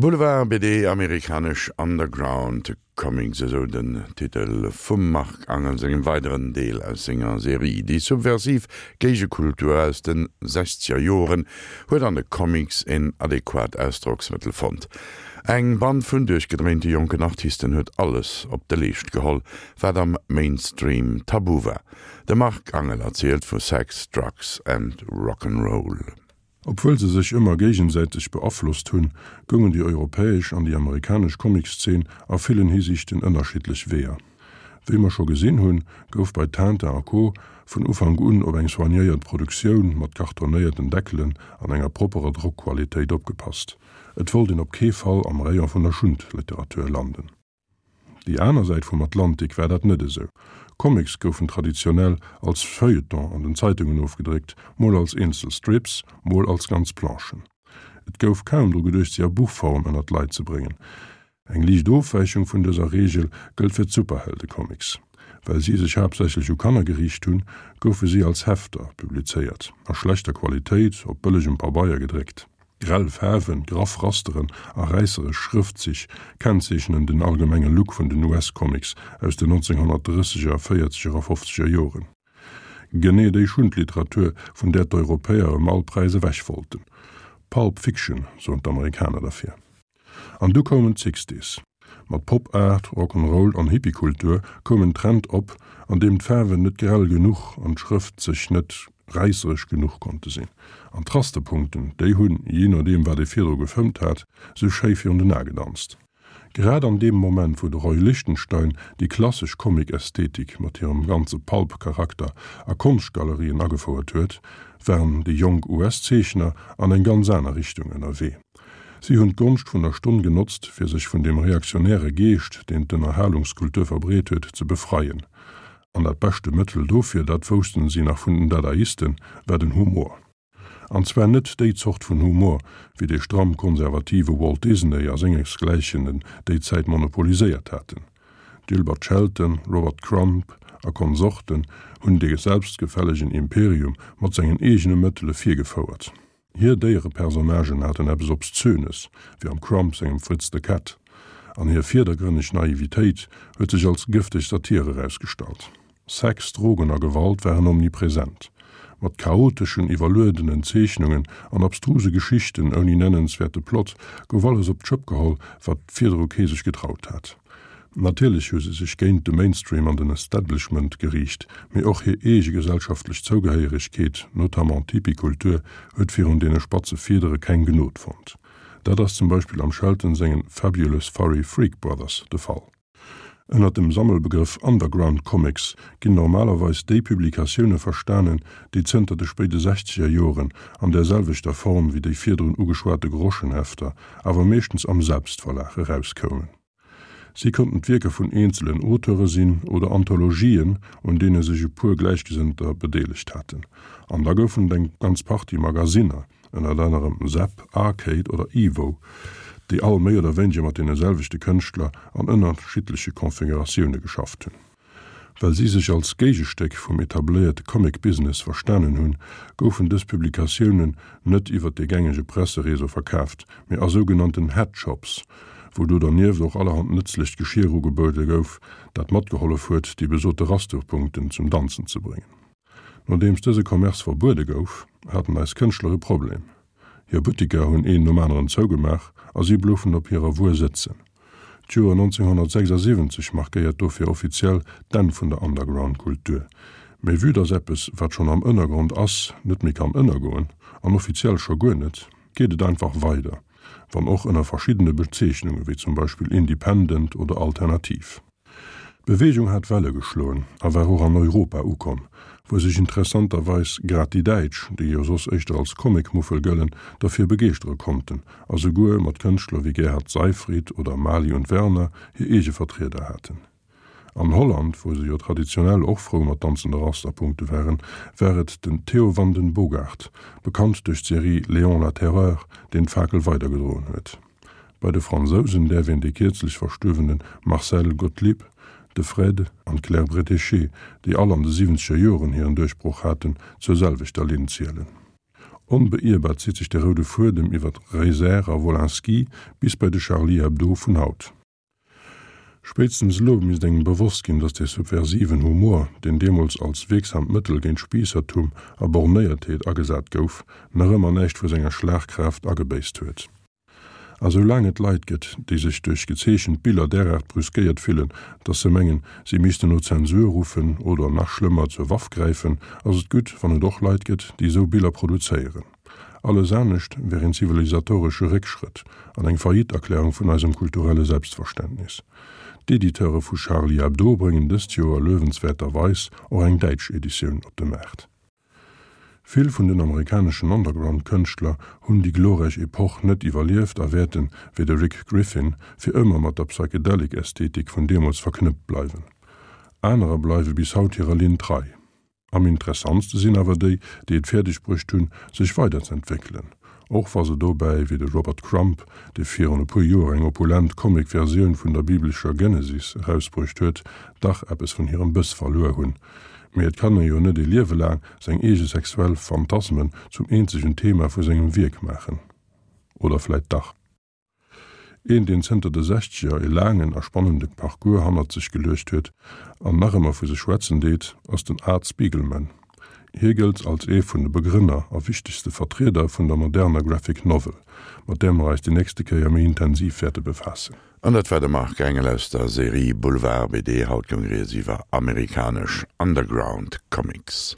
Boulevard BD, Amerikanesch Underground Comics, esou den Titel vum Marc Angel sengem weideren Deel aus senger Serie. Déi subversiv Géigekultur aus de sechzeger Joren huet an de Comics en adequat Ausdrocksmëttel fonnt. Eng Band vun duerchgedréinte jonken Artisten huet alles op de Leescht geholl, wat am Mainstream tabu war. De Marc Angel erzielt vu Sex, Drugs and Rock'n'Roll. Obwuel se sech ëmmer géigesäiteg beaflosst hunn, goungen déi europäesch an déi amerikanesch Comiczeen a villen Hisiichten ënnerschiddlech Weeër. Wéi mer scho gesinn hunn, gouf bei Tintin a Co. Vun Ufank un op eng soignéiert Produktioun mat kartonéierten Deckelen an enger propperer Drockqualitéit opgepasst. Et wollt een op kee Fall am Rayon vun der Schundliteratur landen. Déi aner Säit vum Atlantik war dat net esou. Comics goufen traditionell als Feuilleton an den Zeitungen ofgedréckt, mol als eenzel Strips, mol als ganz Planchen. Et gouf kaum dru geduecht si a Buchform ënner d'Leit ze bréngen. Eng liicht Ofwäichung vun dëser Reegel gëllt fir d'Superheldecomics. Well si sech haaptsächlech u Kanner geriicht hunn, goufe si als Hefter publizéiert, a schlechter Qualitéit, op bëllegem Pabeier gedréckt. Grell Faarwen, graff Rasteren a räisseresch Schrëftzich kennzeechnen den allgemenge Look vun den US-Comics aus den 1930er, véierzeger a fofzeger Joren. Genee déi Schundliteratur, vun där d'Europäer ëm all Präis ewech wollten. Pulp Fiction soen d'Amerikaner derfir. An du koumen d'Sixties. Mat Pop Art, Rock 'n' Roll an Hippiekultur koum en Trend op, an deem d'Faarwen net grell genuch an d'Schrëftzich net räisseresch genuch konnte sinn. An d'Rasterpunkten, déi hunn, jee nodeem wat ee virdru gefëmmt hat, sou schéi virun den Ae gedanzt. Grad an deem Moment, wou de Roy Lichtenstein déi klassesch Comic-Ästhetik mat hirem ganze Pulp-Charakter a Konschtgalerien agefouert huet, waren déi jonk US-Zeechner an eng ganz aner Richtung ënnerwee. Si hunn d'Gonscht vun der Stonn genotzt, fir sech vun deem reaktionäre Geescht, deen d'Ënnerhalungskultur verbreet huet, ze befreien. An dat beschte Mëttel dofir, dat woussten si nach vun den Dadaisten, war den Humor. An zwar net déi Zort vun Humor, wéi dee stramm konservative Walt Disney a sengesgläichen en déi Zäit monopoliséiert haten. Gilbert Shelton, Robert Crumb a Konsorten hunn dee selbstgefällegen Imperium mat sengen eegene Mëttele virgefouert. Hir Déierepersonnagen haten eppes Obszönes, wéi am Crumb sengem Fritz the Cat, an hir virdergrënneg Naivitéit huet sech als gëfteg Satir erausgestallt. Sex, Drogen a Gewalt waren omnipresent. Mat chaoteschen, iwwerluedenen Zeechnungen an abstruse Geschichten ouni nennenswäerte Plot gouf alles op d'Schëpp geholl, wat virdru kee sech getraut hat. Natierlech hu se sech géint de Mainstream an den Establishment geriicht, mee och hir eege gesellschaftlech Zougehéieregkeet, notamment d'Hippie-Kultur, huet virun deene spatze Fiedere keng Gnod fonnt. Dat ass zum Beispill am Shelton sengen Fabulous Furry Freak Brothers de Fall. Ënnert dem Sammelbegrëff Underground Comics ginn normalerweis déi Publikatioune verstanen, déi zënter de spéide sechzeger Joren an där selwechter Form wéi déi virdrun ugeschwate Groschenhefter, awer meeschtens am Selbstverlag erauskoumen. Si konnten d'Wierker vun eenzelen Auteure sinn oder Anthologien, un deene sech e puer Gläichgesënnter bedeelegt haten. An da goufen et eng ganz Partie Magasinner, ënnert anerem Zap, Arcade oder Evo, déi all méi oder wéineger mat deene selwechte Kënschtler an ënnerschiddleche Konfiguratioune geschafft hunn. Well si sech als Géigestéck vum etabléierte Comic-Business verstanen hunn, goufen dës Publikatiounen net iwwer de gängege Pressereseau verkaaft, mee a sougenannten Headshops, wou do dernieft och allerhand nëtzlecht Geschier ugebuede gouf, dat matgehollef huet, déi besote Rasterpunkten zum Danzen ze bréngen. Nodeems dëse Commerce verbuede gouf, haten eis Kënschtler e Problem. Hir Buttiker hunn een nom aneren zougemaach a si bloufen op hirer Wuer sëtzen. D'Joer 1976 markéiert dofir offiziell d'Enn vun der Underground-Kultur. Mee vue dass eppes, wat schonn am Ënnergrond ass, net méi kann ënnergoen, an offiziell scho guer net, geet et einfach weider, wann och ënner verschiddene Bezeechnunge wéi zum Beispill Independent oder Alternativ. D'Beweegung hat Welle geschloen a war och an Europa ukomm, wou sech interessanterweis grad déi Däitsch, déi jo soss éischter als Comic-Muffel gëllen, derfir begeeschtere konnten a souguer mat Kënschtler wéi Gerhard Seyfried oder Mali und Werner hir eege Vertrieder haten. An Holland, wou se jo traditionell och frou mat danzende Rasterpunkte waren, war et den Theo van den Bogaert, bekannt duerch d'Serie Léon la Terreur, deen d'Fakel weidergedroen huet. Bei de Fransousen däerf een dee kierzlech verstuerwene Marcel Gotlib, de Fred an d'Claire Bretéché, déi all an de siwwenzeger Joren hiren Duerchbroch haten, zur selwechter Linn zielen. Onbeierbar zitt sech de roude Fuedem iwwer Reiser a Wolinski bis bei de Charlie Hebdo vun haut. Spéitstens elo misst engem bewosst ginn, datt dee subversiven Humor, deen deemools als wierksamt Mëttel géint Spiissertum a Bornéiertheet agesat gouf, nach ëmmer näischt vu senger Schlagkraaft agebéisst huet. A sou laang et Leit gëtt, déi sech duerch gezeechent Biller deraart brüskéiert fillen, datt se mengen, si missten no Zensur ruffen oder, nach schlëmmer, zur Waff gräifen, ass et gutt, wann et och Leit gëtt, déi esou Biller produzéieren. Alles anescht wär een zivilisatoresche Réckschrëtt an eng Faillite-Erklärung vun eisem kulturelle Selbstverständnis. D'Editeure vu Charlie Hebdo bréngen dëst Joer luewenswäerterweis och eng däitsch Editioun op de Maart. Vill vun den amerikaneschen Underground-Kënschtler hunn déi glorräich Epoch net iwwerlieft a wäerten, wéi de Rick Griffin, fir ëmmer mat der Psychedelic-Ästhetik vun deemools verknëppt bleiwen. Anerer bleiwe bis haut hirer Linn trei. Am interessantste sinn awer déi, déi et fäerdeg bruecht hunn, sech weiderz'entwéckelen, och wa se dobäi, wéi de Robert Crumb, dee virun e puer Joer eng opulent Comic-Versioun vun der biblescher Genesis erausbruecht huet, dach eppes vun hirem Bëss verluer hunn. Mee et kann ee jo net ee Liewe laang seng eege sexuell Phantasmen zum eenzegen Thema vu sengem Wierk maachen. Oder vläit dach? Een, deen zënter de Sechzeger e laangen a spannende Parcours hannert sech geluecht huet an nach ëmmer vu sech schwätzen deet, ass den Art Spiegelman. Hie gëllt als ee vun de Begrënner a wichtegste Vertrieder vun der moderner Graphic Novel, mat där mer eis déi nächste Kéier méi intensiv wäerte befaassen. An dat war de Marc Engel aus der Serie Boulevard BD. Haut goung rieds iwwer amerikanesch Underground Comics.